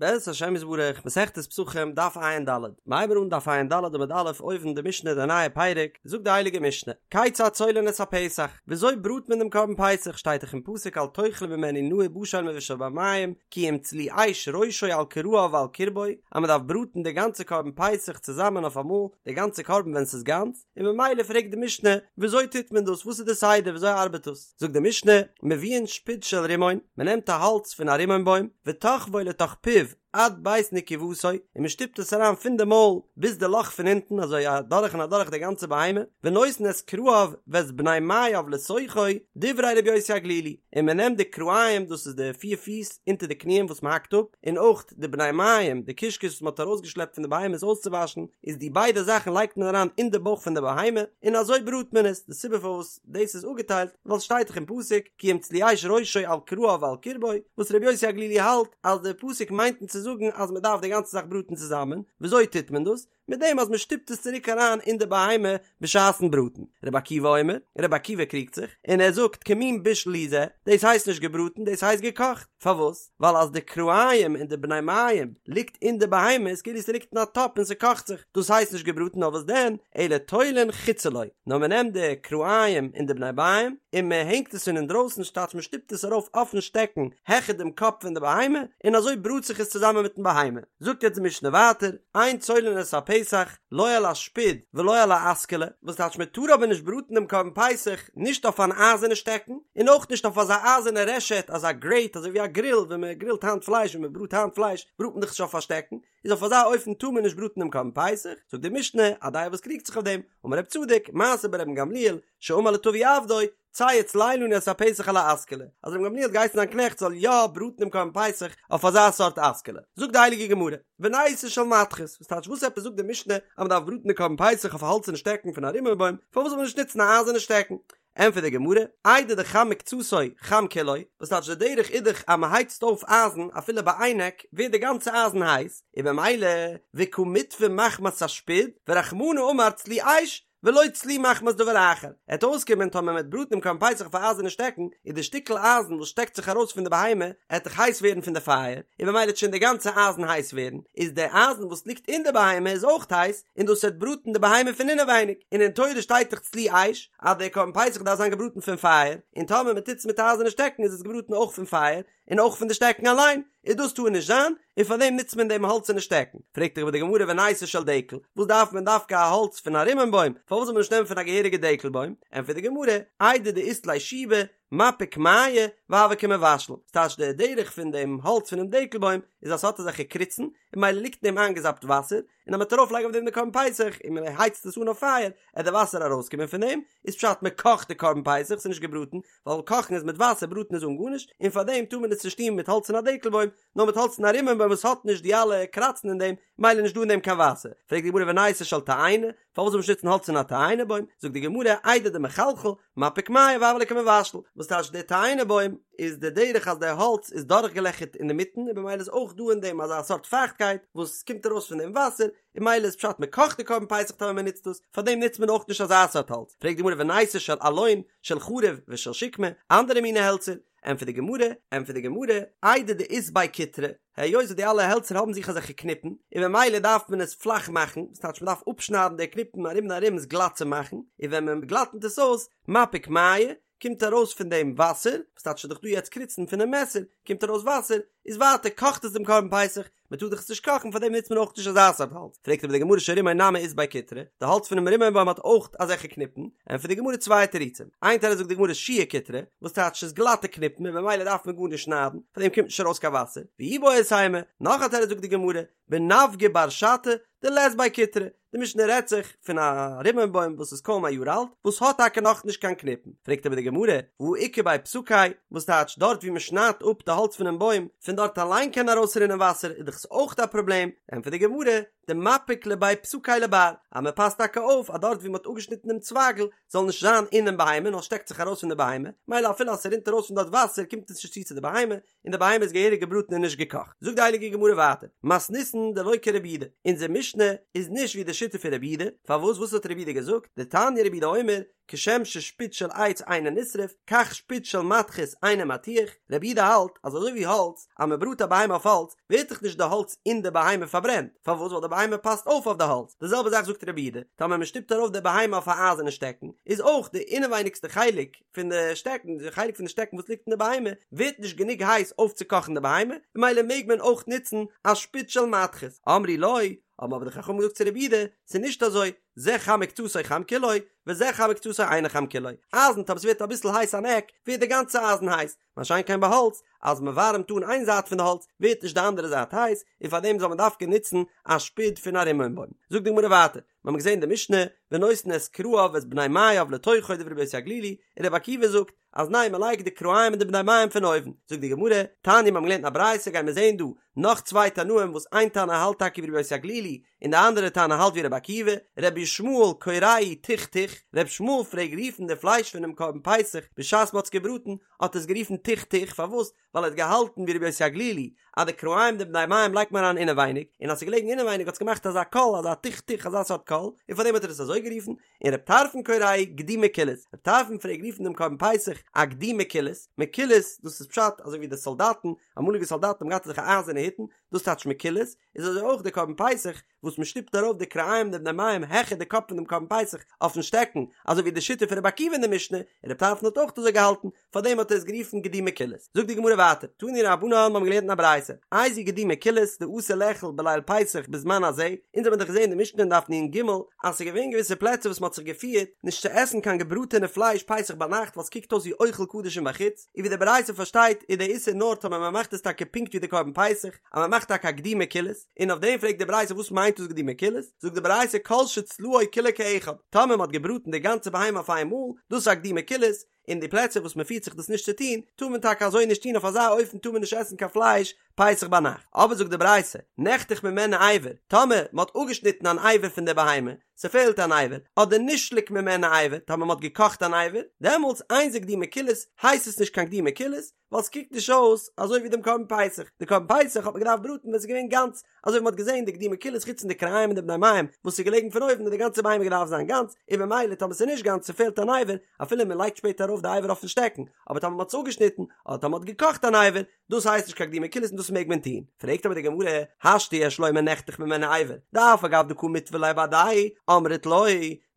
בעזרת השם יתברך, מסכת פסחים, דף ע"ד, מ'הייבן אן דף ע"ד עמוד א', אויבן די משנה די נייע פרק, זאגט די הייליגע משנה, כיצד צולין את הפסח, וויאזוי בראט מען דעם קרבן פסח, שטייט דאך אין פסוק אל תאכלו ממנו נא ובשל מבושל במים, כי אם צלי אש ראשו על כרעיו ועל קרבו, אז מען דארף בראטן די גאנצע קרבן פסח צוזאמען אויף אמאל, די גאנצע קרבן ווען ס'איז גאנץ, און ממילא פרעגט די משנה, וויאזוי טוט מען דאס, וואס איז די סדר, וויאזוי ארבעט דאס? זאגט די משנה, מביאין שפוד של רימון, מען נעמט א האלץ פון א רימון בוים, ותוחבו לתוך פיו עד בית נקובתו, און מען שטופט עס אריין פון די מויל ביז די לאך פון אונטן, אזוי אדורך און אדורך די גאנצע בהמה, ונותן את כרעיו ואת בני מעיו לתוכו, דברי רבי יוסי הגלילי, און מען נעמט די כרעיים, דאס איז די פיר פיס אונטער די קניען וואס מען האקט אפ, און אויך די בני מעיים, די קישקעס וואס מען האט ארויסגעשלעפט פון די בהמה עס אויסצואוואשן, איז די ביידע זאכן לייגט מען אריין אין די בויך פון די בהמה, און אזוי בראט מען עס, די סיבה פארוואס. דאס איז אפגעטיילט ווייל ס'שטייט דאך אין פסוק כי אם צלי אש ראשו על כרעיו ועל קרבו, וואס רבי יוסי הגלילי האלט אז די פסוק מיינט אונז צו זאגן אז מ'דארף די גאנצע זאך בראטן צוזאמען, וויאזוי טוט מען דאס? מיט דעם אז מ'שטופט עס צוריק אריין אין די בהמה בשעת'ן בראטן. רבי עקיבא אומר, רבי עקיבא קריגט זיך, און ער זאגט כמין בישול הוא זה, דאס הייסט נישט געבראטן דאס הייסט געקאכט, פארוואס? ווייל אז די כרעיים און די בני מעיים ליגט אין די בהמה איז כאילו ס'ליגט אין א טאפ און ס'קאכט זיך, דאס הייסט נישט געבראטן נאר וואס דען, אלא תולין חוצה לו, נאר מ'נעמט די כרעיים און די בני מעיים און מ'הענגט עס פון אינדרויסן ס'טייטש מ'שטופט עס ארויף אויפן שטעקן העכער דעם קאפ פון די בהמה און אזוי בראט זיך עס צוזאמען מיטן בהמה. זאגט יעצט די משנה ווייטער, אין צולין את הפסח, לא על השפוד ולא על האסכלה, וואס טייטש מען טאר אבער נישט בראטן דעם קרבן פסח נישט אויף אן אייזערנע שטעקן, און אויך נישט אויף אזא אייזערנע רשת, אזא גרעיט, אזוי ווי א גריל, ווען מען גרילט היינט פלייש, ווען מען בראט היינט פלייש, בראט מען דאך נישט אויף א שטעקן, איז אויף אזא אופן טאר מען נישט בראטן דעם קרבן פסח, זאגט די משנה, א דעה וואס קריגט זיך אויף דעם, אמר רב צדוק, מעשה ברבן גמליאל, שאמר לטבי עבדו, צא וצלה לנו את הפסח על האסכלה, אז רבן גמליאל האט געהייסן זיין קנעכט זאל יא בראטן דעם קרבן פסח אויף אזא סארט אסכלה. זאגט די הייליגע גמרא, וניתו של מתכת, וואס טייטש וואס עפעס זאגט די משנה אז מען דארף בראטן די קרבן פסח אויף א האלצערנע שטעקן פון א רימון בוים, פארוואס זאל מען נישט נוצן א אייזערנע שטעקן? ענטפערט די גמרא, איידי דחם מקצתו חם כולו, וואס טייטש די דרך איז דאך אז מען הייצט אויף אייזן אפילו ביי איין עק ווערט די גאנצע אייזן הייס, און במילא וקא מיטוי מחמת השפוד, ורחמנא אמר צלי אש, ולא צלי מחמת דבר אחר, עט אויסקומען טאמער מ'עט בראטן דעם קרבן פסח אויף א אייזערנע שטעקן, איז די שטיקל אייזן וואס שטעקט זיך ארויס פון די בהמה עט דאך הייס ווערן פון די פייער, און במילא עט שוין די גאנצע אייזן הייס ווערן, איז די אייזן וואס ליגט אין די בהמה איז אויך הייס, און דאס עט בראטן די בהמה פון אינעווייניג, און אין תורה שטייט דאך צלי אש, אז דער קרבן פסח דארף זיין געבראטן פון פייער, און טאמער מ'טוט עס מיט א אייזערנע שטעקן איז עס געבראטן אויך פון פייער, און אויך פון די שטעקן אליין, און דאס טאר נישט זיין, און פאר דעם נוצט מען דעם האלצערנע שטעקן. פרעגט אבער די גמרא וניתו של דקל, וואס דארף מען דווקא א האלץ פון א רימון בוים, פארוואס זאל מען נישט נעמען פון א געהעריגע דקל בוים? ענטפערט די גמרא, איידי דאית ליה שיבי, מפיק מיא, והוי כמבשל, ס'טייטש די דרך פון דעם האלץ פונעם דקל בוים איז אז ס'האט אזעלכע קריצן, און ממילא ליגט אין דעם איינגעזאפט וואסער, און אז מ'וועט ארויף לייגן אויף דעם די קרבן פסח און מען הייצט עס אן אויף פייער, עט די וואסער ארויסקומען פון דעם, איז פשט מען קאכט די קרבן פסח, ס'איז נישט געבראטן, ווייל קאכן איז מיט וואסער בראטן איז אן גארנישט, און פאר דעם טאר מען עס נישט טון מיט האלץ פון א דקל בוים, נאר מיט האלץ פון א רימון בוים וואס האט נישט די אלע קראצן אין דעם, ממילא נישט דא אין דעם קיין וואסער. פרעגט די גמרא וניתו של תאנה, פארוואס זאל מען נישט נוצן האלץ פון א תאנה בוים? זאגט די גמרא, איידי דמחלחל, מפיק מיא והוי ליה כמבשל, וואס טייטש די תאנה בוים איז די דרך אז די האלץ איז דורכגעלעכערט אינדערמיטן און במילא איז אויך דא אין דעם אזא סארט פייכטקייט וואס קומט ארויס פון דעם וואסער, און ממילא איז פשט מען קאכט די קרבן פסח טאמער מען נוצט דאס, פארדעם נוצט מען אויך נישט אזא סארט האלץ, פרעגט די גמרא וניתו של אלון, של חרוב ושל שקמה, אנדערע מיני העלצער, ענטפערט די גמרא, ענטפערט די גמרא, איידי דאית ביה קיטרי, היות וואס די אלע העלצער האבן זיך אזעלכע קניפן, און במילא דארף מען עס פלאך מאכן, וואס טייטש מען דארף אפשניידן די קניפן ארום און ארום עס גלאט צו מאכן, און ווען מען גלאטנט עס אויס, מפיק מיא, קומט ארויס פון דעם וואסער, וואס טייטש ס'איז דאך דא יעצט קריצן פונעם מעסער, קומט ארויס וואסער, איז ווייטער קאכט עס דעם קרבן פסח, מען טאר דאך עס נישט קאכן פארדעם נוצט מען אויך נישט אזא סארט האלץ, פרעגט אבער די גמרא של רימון נמי אית ביה קיטרי, די האלץ פונעם רימון בוים האט אויך אזעלכע קניפן, ענטפערט די גמרא צוויי תירוצים, איין תירוץ זאגט די גמרא שיעור קיטרי, וואס טייטש ס'איז גלאטע קניפן און במילא דארף מען גארנישט שניידן, פארדעם קומט נישט ארויס קיין וואסער, ואיבעית אימא, נאך א תירוץ זאגט די גמרא, בנבגא בר שתא דלית ביה קיטרי, די משנה רעדט זיך פון א רימון בוים וואס איז קוים א יאר אלט, וואס האט טאקע נאכנישט קיין קניפן, פרעגט אבער די גמרא, והא איכא בי פסקיה, וואס טייטש דארט ווי מען שניידט אפ די האלץ פונעם בוים, פון דארט אליין קען ארויסרינען וואסער, איז דאך עס אויך א פראבלעם, ענטפערט די גמרא, דמפיק לבי פסקיה לבר, אז מען פאסט טאקע אויף אז דארט ווי מען האט אפגעשניטן דעם צווייגל זאל נישט זיין אינעם בהמה נאר שטעקט זיך ארויס פון די בהמה, מילא אפילו אז ס'רינט ארויס פון דארט וואסער קומט עס נישט צו צו די בהמה, און די בהמה איז געהעריג געבראטן און נישט געקאכט. זאגט די הייליגע גמרא ווייטער, מתניתין דלא כרבי יהודה, אונזער משנה איז נישט ווי די שיטה פון רבי יהודה, פארוואס וואס האט רבי יהודה געזאגט, דתניא רבי יהודה אומר, כשם ששפוד של עץ אינו נשרף, כך שפוד של מתכת אינו מתיח, רבי יהודה האלט אז אזוי ווי האלץ, אז מען בראט א בהמה אויף האלץ, ווערט דאך נישט די האלץ אין די בהמה פארברענט, פארוואס ווייל די בהמה פאסט אויף אויף די האלץ, די זעלבע זאך זאגט רבי יהודה, טאמער מען שטופט ארויף די בהמה אויף א אייזערנע שטעקן, איז אויך די אינעווייניגסטע חלק פון די שטעקן, די חלק פון די שטעקן וואס ליגט אין די בהמה, ווערט נישט גענוג הייס אויפצוקאכן די בהמה, ממילא מעג מען אויך נוצן א שפוד של מתכת. אמרו לו, האבן אבער די חכמים געזאגט צו רבי יהודה, ס'איז נישט אזוי, זה חם מקצתו חם כולו, וזה חם מקצתו אינו חם כולו. אייזן, טאמער ס'ווערט אביסל הייס אן עק, ווערט די גאנצע אייזן הייס, מה שאין כן ביי האלץ, אז מען ווארעמט אן איין זייט פון די האלץ, ווערט נישט די אנדערע זייט הייס, און פארדעם זאל מען דווקא נוצן א שפוד פון א רימון בוים. זאגט די גמרא ווייטער, מיר האבן געזען די משנה, ונותן את כרעיו ואת בני מעיו לתוכו דברי רבי יוסי הגלילי, און רבי עקיבא זאגט, אז ניין מען לייגט די כרעים און די בני מעיים פון אויבן, זאגט די גמרא, תניא מיר האבן געלערנט אין א ברייתא גייען מיר זען דא נאך צוויי תנאים וואס איין תנא האלט טאקע ווי רבי יוסי הגלילי און די אנדערע תנא האלט ווי רבי עקיבא, רבי ישמעאל קוראהו תוך תוך, רבי ישמעאל פלעג רופן די פלייש פונעם קרבן פסח בשעת מען האט עס געבראטן האט ער עס גערופן תוך תוך פארוואס ווייל ער האט געהאלטן ווי רבי יוסי הגלילי אז די כרעים די בני מעיים לייגט מען אריין אינעווייניג און אז ס'איז געלעגן אינעווייניג האט עס געמאכט אזא קול אזא תוך תוך אזא סארט קול און פארדעם האט ער עס אזוי גערופן, און רב טרפון קוראהו גדי מקולס, רב טרפון פלעג רופן דעם קרבן פסח א גדי מקולס, מקולס דאס איז פשט אזוי ווי די סאלדאטן, אמאליגע סאלדאטן האבן געהאט אזעלכע אייזערנע היטן, דאס טייטש מקולס, איז אזוי אויך די קרבן פסח וואס מען שטופט ארויף די כרעים די בני מעיים העכער די קאפ פון דעם קרבן פסח אויפן שטעקן, אזוי ווי די שיטה פון רבי עקיבא אין די משנה, און רב טרפון האט אויך אזוי געהאלטן, פארדעם האט ער עס גערופן גדי מקולס. זאגט די גמרא ווייטער, תנו רבנן מיר האבן געלערנט אין א ברייתא, איזהו גדי מקולס דאסור לאכול בליל פסח בזמן הזה, אונז האבן דאך געזען אין די משנה אין דף נ"ג אז ס'איז געווען געוויסע פלעצער וואס מ'האט זיך געפירט נישט צו עסן קיין געבראטענע פלייש פסח ביינאכט ווייל ס'קוקט אויס ווי אוכל קדשים בחוץ, און ווי די ברייתא פארשטייט איז דער איסור נאר טאמער מ'מאכט עס טאקע פונקט ווי די קרבן פסח, אז מ'מאכט טאקע א גדי מקולס, און אויף דעם פרעגט די ברייתא וואס מיינט דאס גדי מקולס, זאגט די ברייתא כל שצלאו כולו כאחד, טאמער מ'האט געבראטן די גאנצע בהמה אויף איינמאל, דאס איז א גדי מקולס, אין די פלעצער וואס מען פירט זיך דאס נישט צו טון, טאר מען טאקע אזוי נישט טון, אויף אזא אופן טאר מען נישט עסן קיין פלייש פסח ביינאכט. אבער זאגט די ברייתא, נחתך ממנו אבר, טאמער מען האט אפגעשניטן אן אבר פון די בהמה, ס'פעלט אן אבר, אדער נשלק ממנו אבר, טאמער מען האט געקאכט אן אבר, דעמאלטס אין זה גדי מקולס, הייסט עס נישט קיין גדי מקולס, ווייל ס'קוקט נישט אויס אזוי ווי דעם קרבן פסח, די קרבן פסח האט מען געדארפט בראטן ווען ס'איז געווען גאנץ, אזוי ווי מ'האט געזען די גדי מקולס חוץ פון די כרעים און די בני מעיים וואס איז געלעגן פון אויבן האט די גאנצע בהמה געדארפט זיין גאנץ, און ממילא טאמער ס'איז נישט גאנץ ס'פעלט אן אבר, אפילו מ'לייגט שפעטער ארויף די אבר אויפן שטעקן, אבער טאמער מ'האט עס אפגעשניטן, אדער טאמער מ'האט געקאכט אן אבר, דאס הייסט נישט קיין גדי מקולס און דאס מעג מען טון. פרעגט אבער די גמרא, השתא יש לומר נחתך ממנו אבר, דאף על גב דקא מיתבא ליה בהדיה, אמרת לא,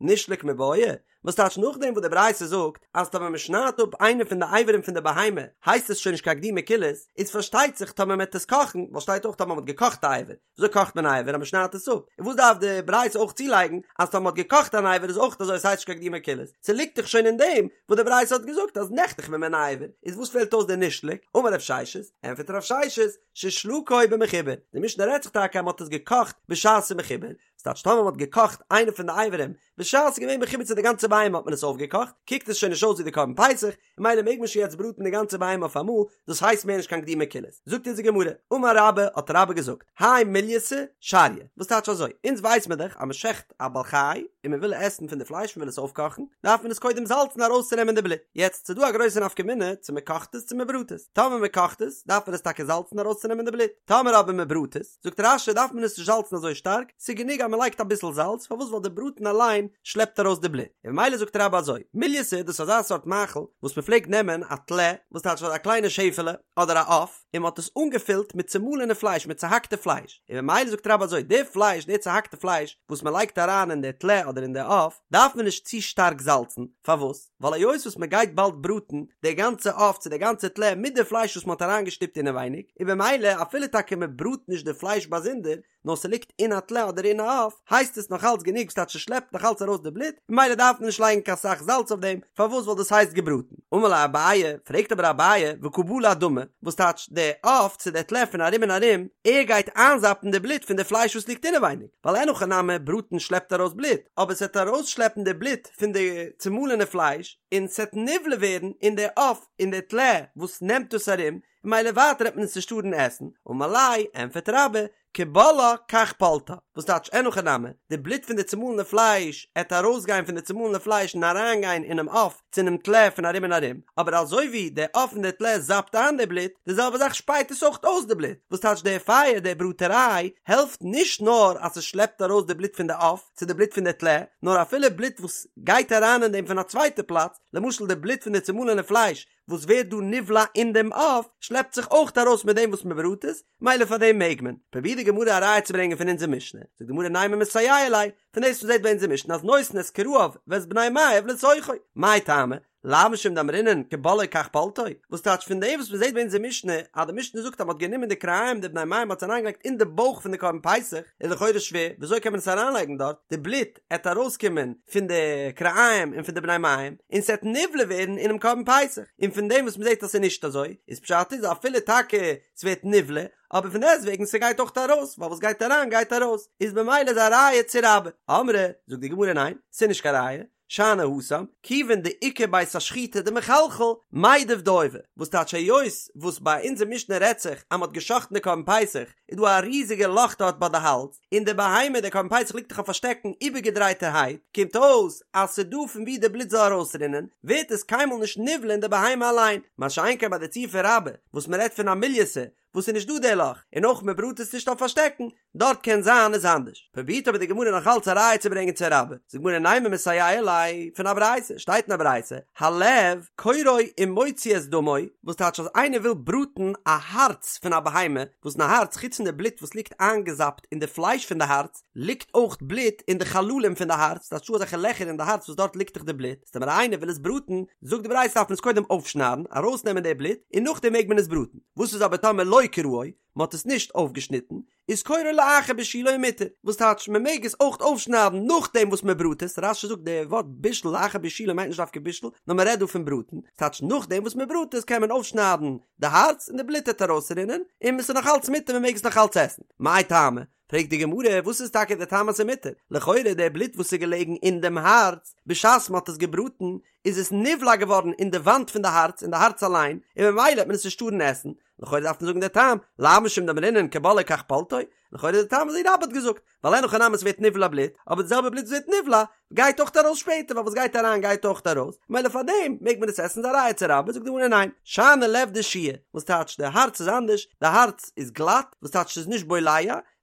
נשלק מיבעיא, וואס טייטש נאכדעם וואס די ברייתא זאגט אז טאמער מען שניידט אפ איינע פון די אברים פון די בהמה הייסט עס שוין נישט קיין גדי מקולס, איז פארשטייט זיך טאמער מען וועט עס קאכן, ווייל שטייט אויך טאמער מען האט געקאכט א אבר, וויאזוי קאכט מען א אבר אז מען שניידט עס אפ, און וואס דארף די ברייתא אויך צולייגן אז טאמער מען האט געקאכט אן אבר איז אויך אזוי עס הייסט נישט קיין גדי מקולס, ס'ליגט דאך שוין אין דעם וואס די ברייתא האט געזאגט אז נחתך ממנו אבר, איז וואס פעלט אויס די נשלק, אמר רב ששת, ענפערט רב ששת, ששלקו במחובר, די משנה רעדט זיך טאקע אז מען האט עס געקאכט בשעת ס'איז מחובר, ס'טייטש טאמער מ'האט געקאכט איינע פון די אברים בשעת ס'איז געווען מחובר צו די גאנצע בהמה האט מען עס אויפגעקאכט, קוקט עס שוין נישט אויס ווי די קרבן פסח, און ממילא מעג מען שוין יעצט בראטן די גאנצע בהמה אויף אמאל, דאס הייסט מער נישט קיין גדי מקולס. זאגט אונז די גמרא, אמר רבה, האט רבה געזאגט, האי מולייתא שריא, וואס טייטש אזוי, אונז ווייס מען דאך אז מ'שעכט א בעל חי און מ'וויל עסן פון די פלייש מ'וויל עס אויפקאכן, דארף מען עס קודם זאלצן ארויסצונעמען די בלוט, יעצט ס'איז דא א גרויסע נפקא מינה צו מ'קאכט עס צו מ'בראט עס, טאמער מ'קאכט עס דארף מען עס טאקע זאלצן ארויסצונעמען די בלוט, טאמער אבער מ'בראט עס, זאגט רש"י דארף מען עס נישט זאלצן אזוי שטארק, ס'איז גענוג אז מ'לייגט אביסל זאלץ, פארוואס ווייל די בראטן אליין שלעפט ארויס די בלוט, און ממילא זאגט רבה אזוי, מולייתא דאס איז אזא סארט מאכל וואס מ'פלעגט נעמען א טלה, וואס טייטש א קליינע שעפעלע, אדער א עוף, און מ'האט עס אנגעפילט מיט צומאלענע פלייש מיט צוהאקטע פלייש, און ממילא זאגט רבה אזוי, די פלייש, די צוהאקטע פלייש וואס מ'לייגט אריין אין די טלה אדער אין די עוף, דארף מען נישט צו שטארק זאלצן, פארוואס? ווייל היות וואס מען גייט באלד בראטן די גאנצע עוף צו די גאנצע טלה מיט די פלייש וואס מען האט אריינגעשטופט אינעווייניג, און במילא אפילו טאקע מען בראט נישט די פלייש באזונדער, נאר ס'ליגט אין א טלה אדער אין א עוף, הייסט עס נאך אלץ גענוג ס'טייטש ס'שלעפט נאך אלץ ארויס די בלוט, ממילא דארף מען נישט לייגן קיין סאך זאלץ אויף דעם, פארוואס ווייל דאס הייסט געבראטן. אמר ליה אביי, פרעגט אבער אביי, וקא בלע דמא, וואס טייטש די עוף צו די טלה פון ארום און ארום, ער גייט איינזאפן די בלוט פון די פלייש וואס ליגט אינעווייניג, ווייל אין הכי נמי בראטן שלעפט ארויס בלוט, אבער ס'וועט ארויסשלעפן די בלוט פון די צומאלענע פלייש און ס'עט נבלע ווערן אין די עוף אין די טלה וואס נעמט דאס ארום, און ממילא ווייטער העט מען עס נישט טארן עסן, אמר ליה, ענפערט רבה, כבולעה כך פולטה, וואס טייטש אין הכי נמי, די בלוט פון די צומאלענע פלייש עט ארויסגיין פון די צומאלענע פלייש און אריינגיין אינעם עוף צו אינעם טלה פון ארום און ארום, אבער אזוי ווי די עוף און די טלה זאפט איין די בלוט, די זעלבע זאך שפייט עס אויך אויס די בלוט, וואס טייטש די פייער די בראטעריי העלפט נישט נאר אז ס'שלעפט ארויס די בלוט פון די עוף צו די בלוט פון די טלה, נאר אפילו בלוט וואס גייט אריין אין דעם פון א צווייטע פלאץ, למשל די בלוט פון די צומאלענע פלייש וואס ווערט דא נבלע אין דעם עוף, שלעפט זיך אויך ארויס מיט דעם וואס מען בראט עס, מילא פאר דעם מעג מען. פרובירט די גמרא א ראיה צו ברענגען פון אונזער משנה, זאגט די גמרא נימא מסייע ליה, פון דאס וואס מ'זעט ביי אונזער משנה אז נותן את כרעיו ואת בני מעיו לתוכו, מאי טעמא? לאו משום דאמרינן כבולעו כך פולטו, וואס טייטש פון דעם וואס מען זעט ביי אונזער משנה אז די משנה זאגט אז מען האט גענומען די כרעיים די בני מעיים מ'האט עס אריינגעלייגט אין די בויך פון די קרבן פסח, איז לכאורה שווער, וויאזוי קען מען עס אריינלייגן דארט, די בלוט עט ארויסקומען פון די כרעיים און פון די בני מעיים, און ס'עט נבלע ווערן אינעם קרבן פסח, און פון דעם וואס מ'זעט אז ס'איז נישט אזוי, איז פשט איז אפילו טאקע ס'ווערט נבלע, אבער פון דעסטוועגן ס'גייט אויך ארויס, ווייל וואס גייט אריין גייט ארויס, איז במילא איז א ראיה צו רבה. אמרי, זאגט די גמרא ניין, ס'איז נישט קיין ראיה, שאני התם, כיוון דאיכא בית השחיטה דמחלחל, מידב דיוי, וואס טייטש היות וואס ביי אונזער משנה רעדט זיך אז מ'האט גע'שחט'ן די קרבן פסח, איז דא א ריזיגע לאך דארט ביי די האלז, און די בהמה די קרבן פסח ליגט דאך אויף א שטעקן איבערגעדרייטערהייט, קומט אויס אז ס'איז דא פון וואו די בלוט זאל ארויסרינען, ווערט עס קיינמאל נישט נבלע אין די בהמה אליין, מה שאין כן ביי די ציור פון רבה, וואס מ'רעדט פון א מולייתא, וואס איז נישט דא די לאך, און אויך מ'בראט עס נישט אויף א שטעקן, דארט קען זיין איז אנדערש. פרובירט אבער די גמרא נאך אלץ א ראיה צו ברענגען צו רבה, זאגט די גמרא נימא מסייע ליה, פון א ברייתא, שטייט אין א ברייתא, הלב קורעו ומוציא את דמו, וואס טייטש אז איינער וויל בראטן א הארץ פון א בהמה, וואס אין א הארץ חוץ פון די בלוט וואס ליגט איינגעזאפט אין די פלייש פון די הארץ, ליגט אויך בלוט אין די חללים פון די הארץ, ס'טייטש ס'דא אזעלכע לעכער אין די הארץ וואס דארט ליגט דאך די בלוט, איז טאמער איינער וויל עס בראטן, זאגט די ברייתא דארף מען עס קודם אויפשניידן, ארויסנעמען די בלוט, און נאכדעם מעג מען עס בראטן. וואס איז אבער טאמער לא קרעו, מען האט עס נישט אויפגעשניטן, איז קורעו לאחר בישולו ומותר, וואס טייטש מען מעג עס אויך אויפשניידן נאכדעם וואס מען בראט עס, רש"י זאגט די ווארט בישול לאחר בישולו מיינט נישט דווקא בישול, נאר מען רעדט דא פון בראטן, ס'טייטש נאכדעם וואס מען בראט עס קען מען אויפשניידן די הארץ און די בלוט וועט ארויסרינען, און עס איז נאך אלץ מותר מען מעג עס נאך אלץ עסן. מאי טעמא? פרעגט די גמרא, וואס איז טאקע די טעם אז ס'איז מותר? לכאורה די בלוט וואס איז געלעגן אין דעם הארץ בשעת מען האט עס געבראטן, איז עס נבלע געווארן אין די וואנט פון די הארץ, אין די הארץ אליין, און ממילא וועט מען עס נישט טארן עסן, לכאורה דארף מען זאגן די טעם, לאו משום דאמרינן כבולעו כך פולטו, לכאורה די טעם אזוי רבה האט געזאגט, ווייל אין הכי נמי ס'ווערט נבלע בלוט, אבער די זעלבע בלוט וואס ווערט נבלע, גייט אויך ארויס שפעטער, ווייל וואס גייט אריין גייט אויך ארויס, ממילא פאר דעם מעג מען עס עסן, איז א ראיה צו רבה, זאגט די גמרא ניין, שאני לב דשיע, וואס טייטש די הארץ איז אנדערש, די הארץ איז גלאט, וואס טייטש ס'איז נישט בולע,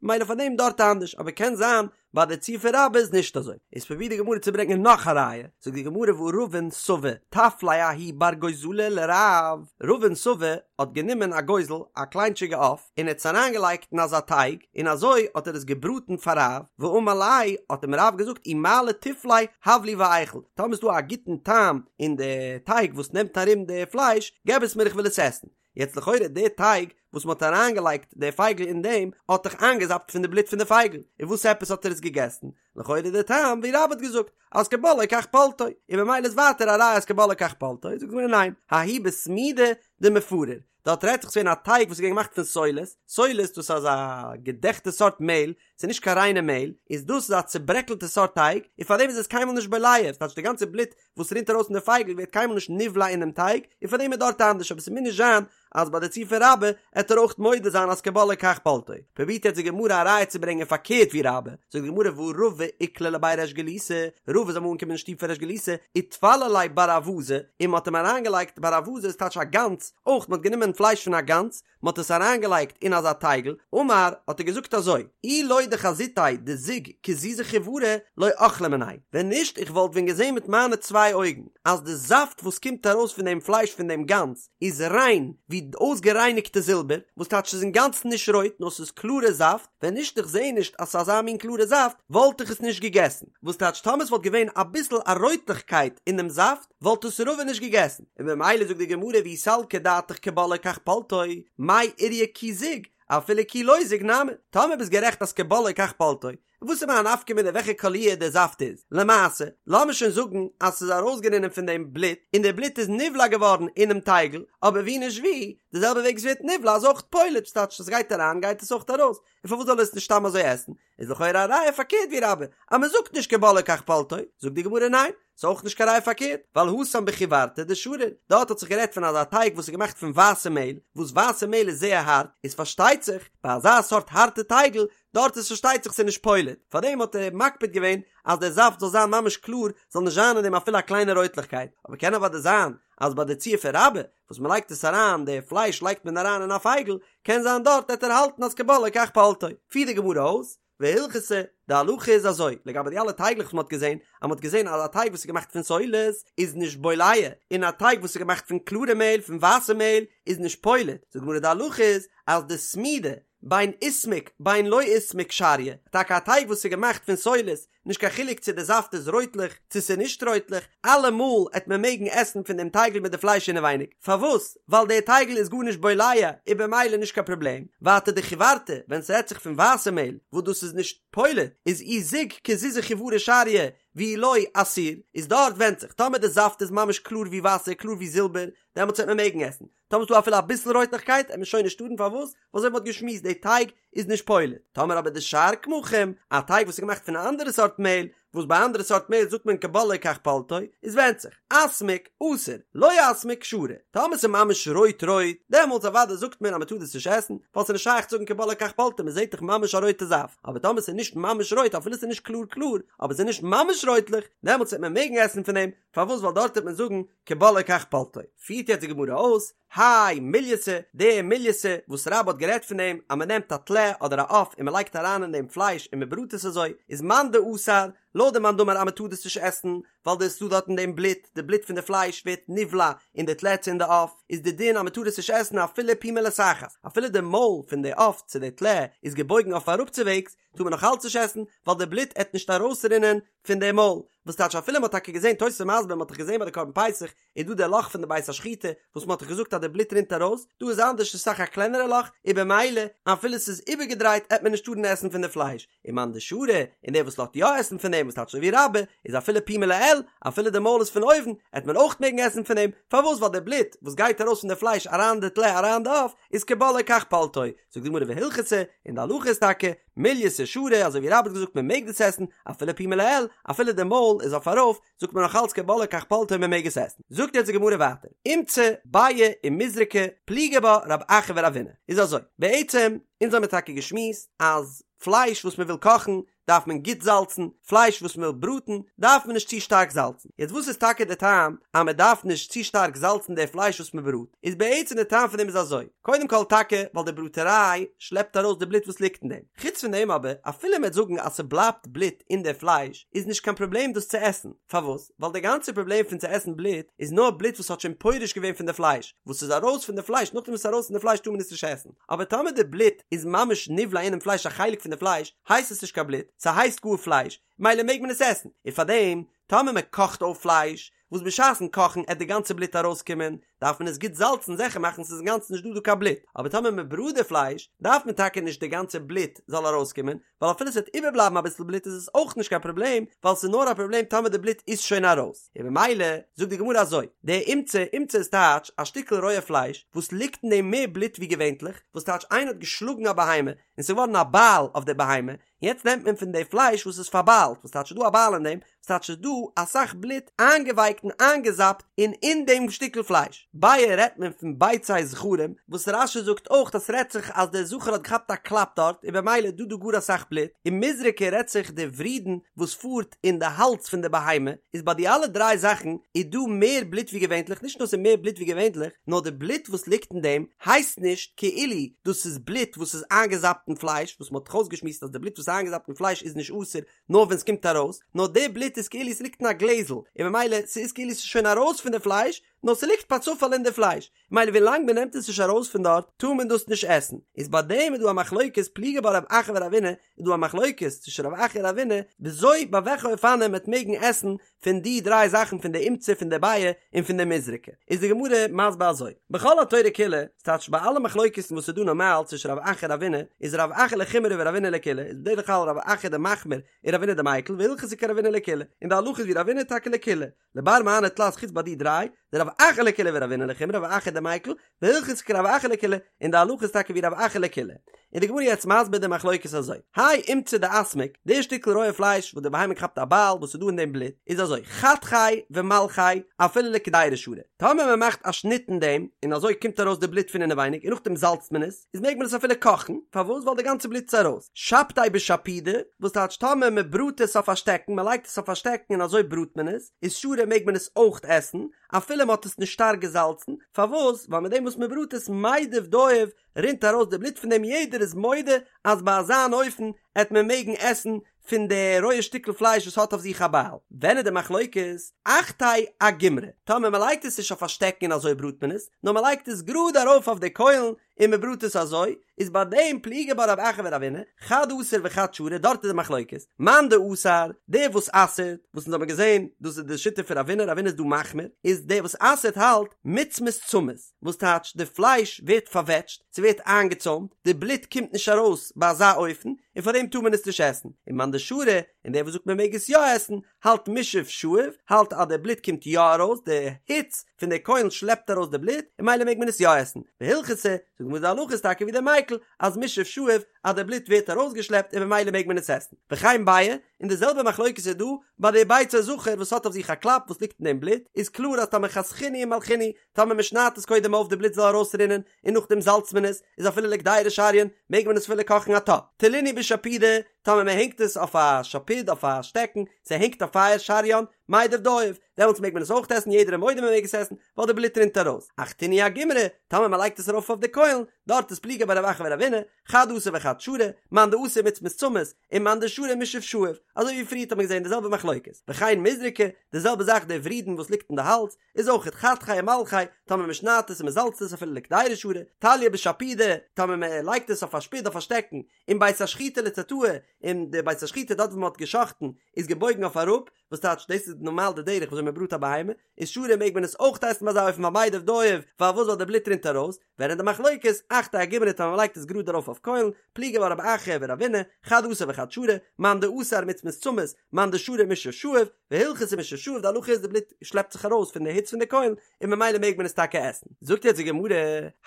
ממילא פאר דעם דארט אנדערש, אבער קען זיין ביי די ציור פון רבה איז נישט אזוי. איז פרובירט די גמרא צו ברענגען נאך א ראיה, זאגט די גמרא והא רבין סבא טף ליה ההוא בר גוזלא לרב, רבין סבא האט גענומען א גוזל, א קליינטשיגע עוף, און ער האט עס אריינגעלייגט אין אזא טייג, און אזוי האט ער עס געבראטן פאר רב, ואמר ליה, האט אים רב געזאגט אי מעלי טיף ליה הב לי ואיכול, טאמער איז דא א גוטן טעם אין די טייג וואס נעמט ארום די פלייש, געב עס מיר איך וויל עס עסן. יעצט לכאורה די טייג וואס מ'האט אריינגעלייגט די פייגל אין דעם האט דאך איינגעזאפט פון די בלוט פון די פייגל, און וואס עפעס האט ער עס געגעסן? לכאורה די טעם ווי רבה האט געזאגט אז כבולעו כך פולטו, און ממילא איז ווייטער א ראיה אז כבולעו כך פולטו, זאגט די גמרא ניין, ההוא בסמידא דמפריר, דארט רעדט זיך ס'געווען א טייג וואס איז געווען געמאכט פון סולת, סולת דאס איז אזא געדעכטע סארט מעהל, ס'איז נישט קיין ריינע מעהל, איז דאס איז א צוברעקלטע סארט טייג, און פארדעם איז עס קיינמאל נישט בולע, ס'טייטש די גאנצע בלוט וואס רינט ארויס פון די פייגל ווערט קיינמאל נישט נבלע אינעם טייג, און פאר דעם איז דארט אנדערש, אבער ס'מוז נישט זיין אז ביי די ציור פון רבה עט ער אויך מודה זיין אז כבולעו כך פולטו. פרובירט יעצט די גמרא א ראיה צו ברענגען פארקערט ווי רבה, זאגט די גמרא והא רבא איקלע לבי ריש גלותא, רבא איז אמאל אנגעקומען אין שטוב פון ריש גלותא, וטפלו ליה בר אווזא, און מ'האט אים אריינגעלייגט בר אווזא איז טייטש א גאנז, אויך מ'האט גענומען פלייש פון א גאנז, מען האט עס אריינגעלייגט אין אזא טייגל, אמר, האט ער געזאגט אזוי, אי לא דחזיתיה דזיג כזיזא חיורא לא אכלי מיניה, ווען נישט איך וואלט ווען געזען מיט מיינע צוויי אויגן אז די זאפט וואס קומט ארויס פון דעם פלייש פון דעם גאנז איז ריין ווי אויסגערייניגטע זילבער, וואס טייטש ס'איז אינגאנצן נישט רויט נאר ס'איז קלארע זאפט, ווען נישט איך זע נישט אז ס'איז אזא מין קלארע זאפט וואלט איך עס נישט געגעסן, וואס טייטש טאמער ס'וואלט געווען אביסל א רויטליכקייט אין דעם זאפט, וואלט עס רבא נישט געגעסן, און במילא זאגט די גמרא ואי סלקא דעתך כבולעו כך פולטו, מאי איריא כי זיג, אפילו כי לא זיג נמי, טאמער ביסט גערעכט אז כבולעו כך פולטו, וואס איז מיין נפקא מינה וועלכע קאליר דער זאפט איז, למעשה, לאמיר שוין זאגן אז ס'איז ארויסגערינען פון דעם בלוט, און דער בלוט איז נבלע געווארן אינעם טייגל, אבער ווי נישט ווי, די זעלבע וועג עס ווערט נבלע איז אויך פולט, ס'טייטש עס גייט אריין גייט עס אויך ארויס, און פארוואס זאל ער עס נישט סתם אזוי עסן? איז לכאורה א ראיה פארקערט ווי רבה, אז מען זאגט נישט כבולעו כך פולטו, זאגט די גמרא ניין, ס'איז אויך נישט קיין ראיה פארקערט, ווייל התם בחיורתא דשריר, דארט האט זיך גערעדט פון אזא טייג וואס איז געמאכט פון ווייסע מעהל, וואס ווייסע מעהל איז זייער הארט, איז פארשטייט זיך ביי אזא סארט הארטע טייגל, דארט איז פארשטייט זיך ס'איז נישט פולט, פארדעם האט ער מקפיד געווען אז דער זאפט זאל זיין ממש קלאר, זאל נישט זיין אין דעם אפילו א קליינע רויטליכקייט, אבער קען אוודאי זיין אז ביי די ציור פון רבה, וואס מ'לייגט עס אריין, די פלייש לייגט מען אריין אין א פייגל, קען זיין דארט העט ער האלטן אז כבולעו כך פולטו. פירט די גמרא אויס, והלכתא, די הלכה איז אזוי, לגבי די אלע טייגלעך וואס מ'האט געזען, אז מ'האט געזען אז א טייג וואס איז געמאכט פון סולת איז נישט בולע, און א טייג וואס איז געמאכט פון קלארע מעהל, פון ווייסע מעהל, איז נישט פולט, זאגט די גמרא די הלכה איז אז דסמידא, בין איסמיק בין לא איסמיק שריא, טאקע א טייג וואס איז געמאכט פון סולת, נישט קיין חילוק צו די זאפט איז רויטלעך צו ס'איז נישט רויטלעך, אלעמאל עט מען מעגן עסן פון דעם טייגל מיט די פלייש אינעווייניג, פארוואס? ווייל דער טייגל איז גארנישט בולע, איז במילא נישט קיין פראבלעם, ווייטער דחיורתא, ווען ס'רעדט זיך פון ווייסע מעהל, וואס דאס איז נישט פולט, איז אי זיג כזיזי חיורא שריא, ואי לא אסיר, איז דארט ווענדט זיך, טאמער די זאפט איז ממש קלאר ווי וואסער, קלאר ווי זילבער, דעמאלטס וועט מען מעגן עסן, טאמער ס'דא אפילו אביסל רויטליכקייט עט מען שוין נישט טארן פארוואס? ווייל אזוי ווי מ'האט געשמועסט די טייג איז נישט פולט. טאמער אבער דשאר קמחים, א טייג וואס איז געמאכט פון א אנדערע סארט מעהל, וואס ביי אנדערע סארט מעהל זאגט מען כבולעו כך פולטו, איז ווענדט זיך, אסמיק, אסור, לא אסמיק, שרי. טאמער ס'איז ממש רויט רויט, דעמאלטס אוודאי זאגט מען אז מ'טאר דאס נישט עסן, ווייל ס'איז נישט שייך צו זאגן כבולעו כך פולטו, מ'זעט דאך ממש א רויטע זאפט. אבער טאמער ס'איז נישט ממש רויט, אפילו ס'איז נישט קלאר קלאר, אבער ס'איז נישט ממש רויטליך, דעמאלטס וועט מען מעגן עסן פון דעם, פארוואס ווייל דארט וועט מען זאגן כבולעו כך פולטו. פירט יעצט די גמרא אויס, האי מולייתא, די מולייתא וואס רבה האט גערעדט פון דעם אז מען נעמט א טלה אדער א עוף און מען לייגט אריין אין דעם פלייש און מען בראט עס אזוי, איז מאן דאסר, לויט די מאן דאמר אז מען טאר דאס נישט עסן, ווייל דאס איז דא דארט אין דעם בלוט, די בלוט פון די פלייש ווערט נבלע אין די טלה צו אין די עוף, איז די דין אז מען טאר עס נישט עסן אפילו פומיה לתחת, אפילו די מויל פון די עוף צו די טלה איזגעבויגן אויף אראפצווועגס, טאר מען נאך אלץ נישט עסן, ווייל די בלוט עט נישט ארויסרינען פון די מויל, וואס טייטש אפילו מ'האט טאקע געזען תוס' מסביר מ'האט דאך געזען ביי די קרבן פסח איז דא די לאך פון די בית השחיטה וואס מ'האט דאך געזאגט אז די בלוט רינט ארויס, דא איז אנדערש ס'איז אסאך א קלענערע לאך, און במילא אפילו ס'איז איבערגעדרייט עט מען נישט טארן עסן פון די פלייש, ומאן דשרי, און דער וואס לאזט יא עסן פון דעם וואס טייטש אזוי ווי רבה, איז אפילו פומיה לעיל, אפילו די מויל איז פון אויבן, עט מען אויך מעגן עסן פון דעם, פארוואס ווייל די בלוט וואס גייט ארויס פון די פלייש אריין אין די טלה אריין אין די עוף, איז כבולעו כך פולטו, זאגט די גמרא והלכתא, און די הלכה איז טאקע, מולייתא שרי, אזוי ווי רבה האט געזאגט מען מעג דאס עסן, אפילו פומיה לעיל, אפילו די מויל איז אויף ארויף, זאגט מען נאך אלץ כבולעו כך פולטו און מען מעג עס עסן. זאגט יעצט די גמרא ווייטער, אומצא, ביעא ומזרקא, פליגי בה רב אחא ורבינא. איז אזוי, בעצם, אונז האמיר טאקע געשמועסט אז פלייש וואס מען וויל קאכן, דארף מען גוט זאלצן, פלייש וואס מען וויל בראטן דארף מען נישט צו שטארק זאלצן, יעצט וואס איז טאקע די טעם אז מען דארף נישט צו שטארק זאלצן די פלייש וואס מען בראט, איז בעצם די טעם פון דעם איז אזוי, קודם כל טאקע ווייל די בראטעריי שלעפט ארויס די בלוט וואס ליגט אין דעם, חוץ פון דעם אבער אפילו מען וועט זאגן אז ס'בלייבט בלוט אין די פלייש איז נישט קיין פראבלעם דאס צו עסן, פארוואס? ווייל די גאנצע פראבלעם פון צו עסן בלוט איז נאר בלוט וואס האט שוין פורש געווען פון די פלייש, וואס איז ארויס פון די פלייש, נאכדעם וואס ס'איז ארויס פון די פלייש טאר מען עס נישט עסן. אבער טאמער די בלוט איז ממש נבלע אינעם פלייש א חלק פון די פלייש, הייסט עס נישט קיין בלוט, ס'הייסט גאר פלייש, מילא מעג מען עס עסן, און פארדעם טאמער מען קאכט אויף פלייש, וואס בשעת'ן קאכן עט די גאנצע בלוט ארויסקומען, דארף מען עס גוט זאלצן זיכער מאכן ס'איז אינגאנצן נישט דא דא קיין בלוט, אבער טאמער מען בראט די פלייש, דארף מען טאקע נישט די גאנצע בלוט זאל ארויסקומען, ווייל אפילו ס'וועט איבערבלייבן אביסל בלוט איז עס אויך נישט קיין פראבלעם, ווייל ס'איז נאר א פראבלעם טאמער די בלוט איז שוין ארויס. און במילא זאגט די גמרא אזוי, די אומצא, אומצא איז טייטש א שטיקל רויע פלייש וואס ליגט אין דעם מער בלוט ווי געווענטליך, וואס טייטש איינער האט געשלאגן א בהמה און ס'איז געווארן א בייל אויף די בהמה, יעצט נעמט מען פון די פלייש וואס איז פארביילט, וואס טייטש ס'איז דא א בייל אין דעם, וואס טייטש ס'איז דא אסאך בלוט איינגעווייקט און איינגעזאפט אין אין דעם שטיקל פלייש. ביעא רעדט מען פון ביצי זכרים, וואס רש"י זאגט אויך אז ס'רעדט זיך אז דער זכר האט געכאפט א קלאפ דארט און במילא איז דא דא גאר אסאך בלוט, און מזרקא רעדט זיך די ורידין וואס פארט אין די האלז פון די בהמה, איז ביי די אלע דריי זאכן איז דא מער בלוט ווי געווענטליך, נישט נאר ס'איז מער בלוט ווי געווענטליך, נאר די בלוט וואס ליגט אין דעם הייסט נישט כאילו דאס איז בלוט וואס איז איינגעזאפט אין פלייש, וואס מ'האט דאך אויסגעשמועסט אז די בלוט וואס איז איינגעזאפט אין פלייש איז נישט אסור נאר ווען ס'קומט ארויס, נאר די בלוט איז כאילו ס'ליגט אין א גלעזל, און במילא ס'איז כאילו ס'איז שוין ארויס פון די פלייש, נאר ס'ליגט פאר צופאל אין די פלייש, מילא ווילאנג מ'נעמט עס נישט ארויס פון דארט טאר מען דאס נישט עסן, איז ביי דעם איז דא א מחלוקת פליגי בה רב אחא ורבינא, איז דא א מחלוקת צווישן רב אחא און רבינא וויאזוי ביי וועלכע אופנים מ'עט מעגן עסן פון די דריי זאכן פון די אומצא פון די ביעא און פון די מזרקא, איז די גמרא מסביר אזוי, בכל התורה כולה, ס'טייטש ביי אלע מחלוקת'ן וואס איז דא נארמאל צווישן רב אחא און רבינא, איז רב אחא לחומרא ורבינא לקולא, איז בדרך כלל רב אחא די מחמיר און רבינא די מיקל, והלכתא כרבינא לקולא, און די הלכה איז ווי רבינא טאקע לקולא, לבר מהני תלת חוץ ביי די דריי, דרב אחא לקולא ורבינא לחומרא רב אחא דמיקל, והלכתא כרב אחא לקולא, און די הלכה איז טאקע ווי רב אחא לקולא. און די גמרא יעצט מסביר די מחלוקת אזוי, האי אומצא דאסמיק, די שטיקל רויע פלייש וואס די בהמה כאפט א בייל וואס איז דא אין דעם בלוט, איז אזוי, חתכיה ומלחיה אפילו לקדירה שרי, טאמער מען מאכט א שניט אין דעם, און אזוי קומט ארויס די בלוט פון אינעווייניג און נאכדעם זאלצט מען עס, איז מעג מען עס אפילו קאכן, פארוואס? ווייל די גאנצע בלוט איז ארויס. שפדיה בשפודא, וואס טייטש טאמער מען בראט עס אויף א שטעקן, מען לייגט עס אויף א שטעקן און אזוי בראט מען עס, איז שרי מעג מען עס אויך עסן, אפילו מען האט עס נישט שטארק געזאלצן, פארוואס? ווייל מיט דעם וואס מען בראט עס מידב דייב, רינט ארויס די בלוט פון דעם יעדער איז מודה אז ביי אזא אן אופן עט מען מעגן עסן פון די רויע שטיקל פלייש וואס האט אויף זיך א בייל. ווען איז די מחלוקת? אחתיה אגומרי, טאמער מען לייגט עס נישט אויף א שטעקן און אזוי בראט מען עס, נאר מען לייגט עס גראד ארויף אויף די קוילן און מען בראט עס אזוי, איז ביי דעם פליגי בה רב אחא ורבינא, חד אסר וחד שרי, דארט איז די מחלוקת, מאן דאסר, דער וואס אסר'ט, וואס אונז האבן געזען, דאס איז די שיטה פון רבינא, רבינא איז דא מחמיר, איז דער וואס אסר'ט האלט, מיצמת צמית, וואס טייטש די פלייש ווערט פארוועטשט, ס'ווערט איינגעצוימט, די בלוט קומט נישט ארויס ביי אזא אופן, און פאר דעם טאר מען עס נישט עסן, און מאן דשרי, און דער וואס זאגט מען מעג עס יא עסן, האלט מישאב שאיב, האלט אז די בלוט קומט יא ארויס, די היץ פון די קוילן שלעפט ארויס די בלוט, און ממילא מעג מען עס יא עסן. והלכתא, זאגט די גמרא די הלכה איז טאקע ווי דער מיקל, אז מישאב שאיב, אז די בלוט ווערט ארויסגעשלעפט און ממילא מעג מען עס עסן. וכן ביעי, און די זעלבע מחלוקת איז דא ביי די ביצה זכר וואס האט אויף זיך א קלאפ וואס ליגט אין דעם בלוט, איז קלאר אז טאמער חתכינהו ומלחינהו, טאמער מען שניידט עס קודם אויף די בלוט זאל ארויסרינען, און נאכדעם זאלצט מען עס, איז אפילו לקדירה שריין, מעג מען עס אפילו קאכן א טאפ. תלינהו בשפודא, טאמער מען הענגט עס אויף א שפוד אויף א שטעקן, ס'הענגט אויף פייער שריין, מידב דייב, דעמאלטס מעג מען עס אויך עסן, יעדער איז מודה מען מעג עס עסן, ווייל די בלוט רינט ארויס. אחתינהו אגומרי, טאמער מען לייגט עס ארויף אויף די קוילן, דארט איז פליגי בה רב אחא ורבינא, חד אסר וחד שרי, מאן דאסר מיצמת צמית, און מאן דשרי מישאב שאיב, אזוי ווי פריערט האט מען געזען די זעלבע מחלוקת. וכן מזרקא, די זעלבע זאך די ורידין וואס ליגט אין די האלז, איז אויכעט חתכיה ומלחיה, טאמער מען שניידט עס און מען זאלצט עס אפילו לקדירה שרי, תליא בשפודא, טאמער מען לייגט עס אויף א שפוד אויף א שטעקן, און בית השחיטה לתתאי, און די בית השחיטה דארט וואו מען האט גע'שחט'ן איז געבויגן אויף אראפ, וואס טייטש דאס איז נארמאל די דרך וואזוי מען בראט א בהמה, איז שרי מעג מען עס אויך עסן ביי אזא אופן ווייל מידב דייב, פארוואס ווייל די בלוט רינט ארויס, ווען איז די מחלוקת, אחתיה אגומרי טאמער מען לייגט עס גראד ארויף אויף קוילן, פליגי בה רב אחא ורבינא, חד אסר וחד שרי, מאן דאסר מיצמת צמית, מאן דשרי מישאב שאיב, והלכתא מישאב שאיב די הלכה איז די בלוט שלעפט זיך ארויס פון די היץ פון די קוילן און ממילא מעג מען עס טאקע עסן. זאגט יעצט די גמרא,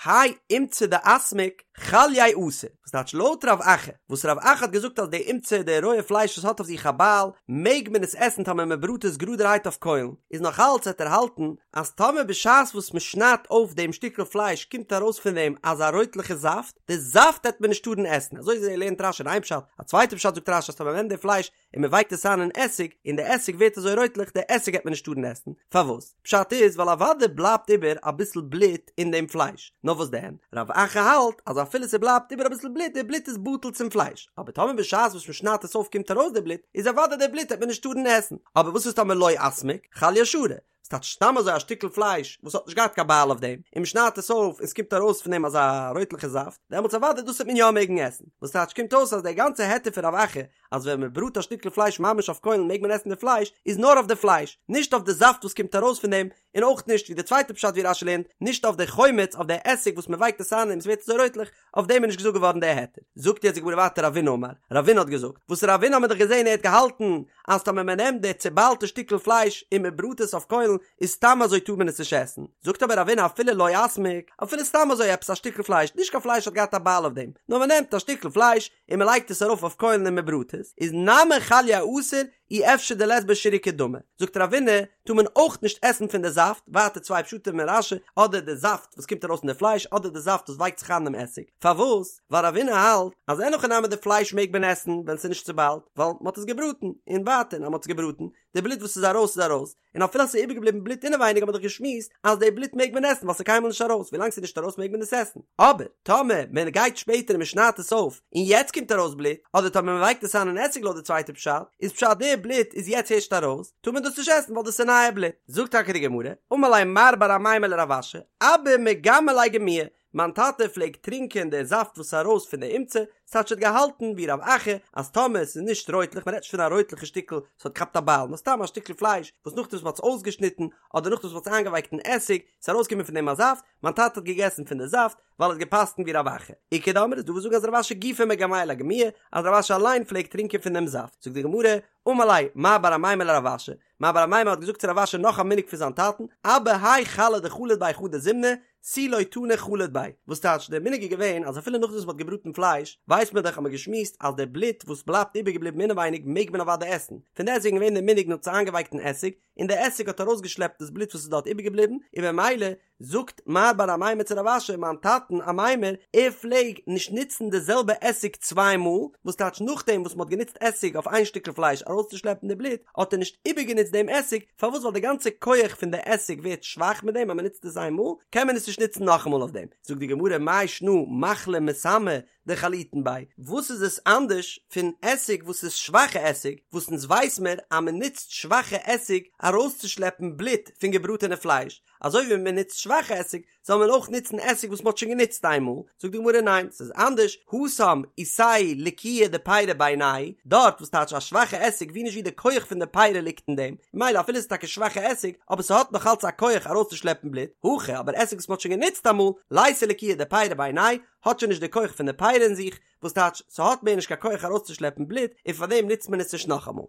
האי אומצא דאסמיק חליה אסור, וואס טייטש לויט רב אחא, וואס רב אחא האט געזאגט אז די אומצא די רויע פלייש וואס האט אויף זיך א בייל מעג מען עס עסן טאמער מען בראט עס גראדערהייט אויף קוילן, איז נאך אלץ וועט ער האלטן אז טאמער בשעת וואס מען שניידט אויף דעם שטיקל פלייש קומט ארויס פון דעם אזא רויטליכע זאפט, די זאפט העט מען נישט טארן עסן, אזוי לערנט רש"י אין איין פשט, א צווייטע פשט זאגט רש"י אז טאמער מען נעמט די פלייש און מען ווייקט עס איין אין עסיג, און די עסיג ווערט אזוי רויטליך, די עסיג העט מען נישט טארן עסן, פארוואס? פשט איז ווייל אוודאי בלייבט איבער אביסל בלוט אין דעם פלייש, נאר וואס דען, רב אחא האלט אז אפילו ס'בלייבט איבער אביסל בלוט, די בלוט איז בטל צום פלייש, אבער טאמער בשעת וואס מען שניידט עס אויף קומט ארויס די בלוט, איז אוודאי די בלוט העט מען נישט טארן עסן, אבער וואס איז טאמער לא אסמיק, חליה שרי, ס'טייטש סתם אזוי א שטיקל פלייש וואס האט נישט געהאט קיין בייל אויף דעם, און מ'שניידט עס אויף און ס'קומט ארויס פון דעם אזא רויטליכע זאפט, דעמאלטס אוודאי דאס וועט מען יא מעגן עסן. וואס טייטש קומט אויס אז דער גאנצע היתר פון רב אחא אז ווען מ'בראט א שטיקל פלייש ממש אויף קוילן מעג מען עסן די פלייש, איז נאר אויף די פלייש, נישט אויף די זאפט וואס קומט ארויס פון דעם, און אויך נישט ווי די צווייטע פשט ווי רש"י לערנט, נישט אויף די חומץ, אויף די עסיג וואס מ'ווייקט עס איין און ס'ווערט אזוי רויטליך, אויף דעם איז נישט געזאגט געווארן דער היתר. זאגט יעצט די גמרא ווייטער רבינא אמר, רבינא האט געזאגט, וואס רבינא האט מען דאך געזען ער האט געהאלטן אז טאמער מען נעמט די צוביילטע שטיקל פלייש און מען בראט עס אויף קוילן איז סתם אזוי טאר מען עס נישט עסן, זאגט אבער רבינא אפילו לא אסמיק, אפילו סתם אזוי עפעס א שטיקל פלייש, נישט קיין פלייש האט געהאט א בייל אויף דעם, נאר מען נעמט א שטיקל פלייש און מען לייגט עס ארויף אויף קוילן און מען בראט עס, איז נמי חליה אסור, אי אפשר דלית ביה שירוקא דמא, זאגט רבינא, טאר מען אויך נישט עסן פון די זאפט, ווייטער צוויי פשטים אין רש"י, אדער די זאפט וואס קומט ארויס פון די פלייש, אדער די זאפט וואס ווייקט זיך איין אינעם עסיג, פארוואס? ווייל רבינא האלט אז אין הכי נמי די פלייש מעג מען עסן ווען ס'איז נישט צוביילט, ווייל מ'האט עס געבראטן, און ווייטער אז מ'האט עס געבראטן, די בלוט וואס איז ארויס איז ארויס, און אפילו אז ס'איז איבערגעבליבן בלוט אינעווייניג האט מען דאך געשמועסט אז די בלוט מעג מען עסן ווייל ס'איז קיינמאל נישט ארויס, ווילאנג ס'איז נישט ארויס מעג מען עס עסן, אבער טאמער מען גייט שפעטער און מען שניידט עס אויף און יעצט קומט ארויס בלוט, אדער טאמער מען ווייקט עס איין אין עסיג לויט די צווייטע פשט, איז פשט די בלוט איז יעצט הערשט ארויס, טאר מען דאס נישט עסן ווייל דאס איז נייע בלוט. זאגט טאקע די גמרא, אמר ליה מר בר אמימר לרב אשי, אבא מגמע ליה גמועי, מיין טאטע פלעגט טרינקען די זאפט וואס איז ארויס פון די אומצא, ס'טייטש ער האט געהאלטן ווי רב אחא אז טאמער עס איז נישט רויטליך, מ'רעדט נישט פון א רויטליכע שטיקל וואס האט געכאפט א בייל, נאר סתם א שטיקל פלייש וואס נאכדעם וואס מ'האט עס אויסגעשניטן, אדער נאכדעם וואס מ'האט עס איינגעווייקט אין עסיג, איז ארויסגעקומען פון דעם א זאפט, מיין טאטע האט געגעסן פון די זאפט, ווייל ער האט געפסקנט ווי רב אחא. איכא דאמרי איז דא וואס זאגן אז רב אשי גופיה מגמע ליה גמועי, אז רב אשי אליין פלעגט טרינקען פון דעם זאפט. זאגט די גמרא, אמר ליה מר בר אמימר לרב אשי, מר בר אמימר האט געזאגט צו רב אשי נאך א מנהג פון זיין טאטן, אבא האי חלא דחליט ביה חדא זימנא, תו לא תני חליט ביה, וואס טייטש דער מנהג איז געווען אז אפילו נאכדעם וואס מ'האט געבראטן פלייש, ווייסט מען דאך האט מען געשמועסט אז דער בלוט וואס בלייבט איבערגעבליבן אינעווייניג מעג מען אוודאי עסן, פון דעסטוועגן געווען דער מנהג מ'האט עס איינגעווייקט אין עסיג, און דער עסיג האט ארויסגעשלעפט דאס בלוט וואס איז דארט איבערגעבליבן, און במילא זאגט מר בר אמימר צו רב אשי, מיין טאטן אמימר, ער פלעג נישט נוצן די זעלבע עסיג צוויי מאל, וואס טייטש נאכדעם וואס מ'האט גענוצט עסיג אויף איין שטיקל פלייש ארויסצושלעפן די בלוט, האט ער נישט איבערגענוצט דעם עסיג, פארוואס ווייל די גאנצע כח פון די עסיג ווערט שוואך מיט דעם אז מ'נוצט עס איין מאל, קען מען עס נישט נוצן נאכאמאל אויף דעם. זאגט די גמרא מאי שנא מכלא מסמא דחליטין ביה, וואס איז עס אנדערש פון עסיג וואס איז שוואכע עסיג, וואס אונז ווייס מיר אז מ'נוצט שוואכע עסיג ארויסצושלעפן בלוט פון געבראטענע פלייש, אזוי ווי מען נוצט שוואכע עסיג, זאל מען אויך נוצן עסיג וואס מען האט שוין גענוצט איינמאל, זאגט די גמרא ניין, ס'איז אנדערש, התם איתיה לקיוהא דפירא בעיניה, דארט וואס טייטש א שוואכע עסיג ווי נישט ווי די כח פון די פירא ליגט אין דעם, ממילא אפילו ס'איז טאקע שוואכע עסיג, אבער ס'האט נאך אלץ א כח ארויסצושלעפן בלוט, הכא אבער עסיג וואס מען האט שוין גענוצט אמאל, ליתיה לקיוהא דפירא בעיניה, האט שוין נישט די כח פון די פירא אין זיך, וואס טייטש ס'האט מער נישט קיין כח ארויסצושלעפן בלוט, און פארדעם נוצט מען עס נישט נאכאמאל.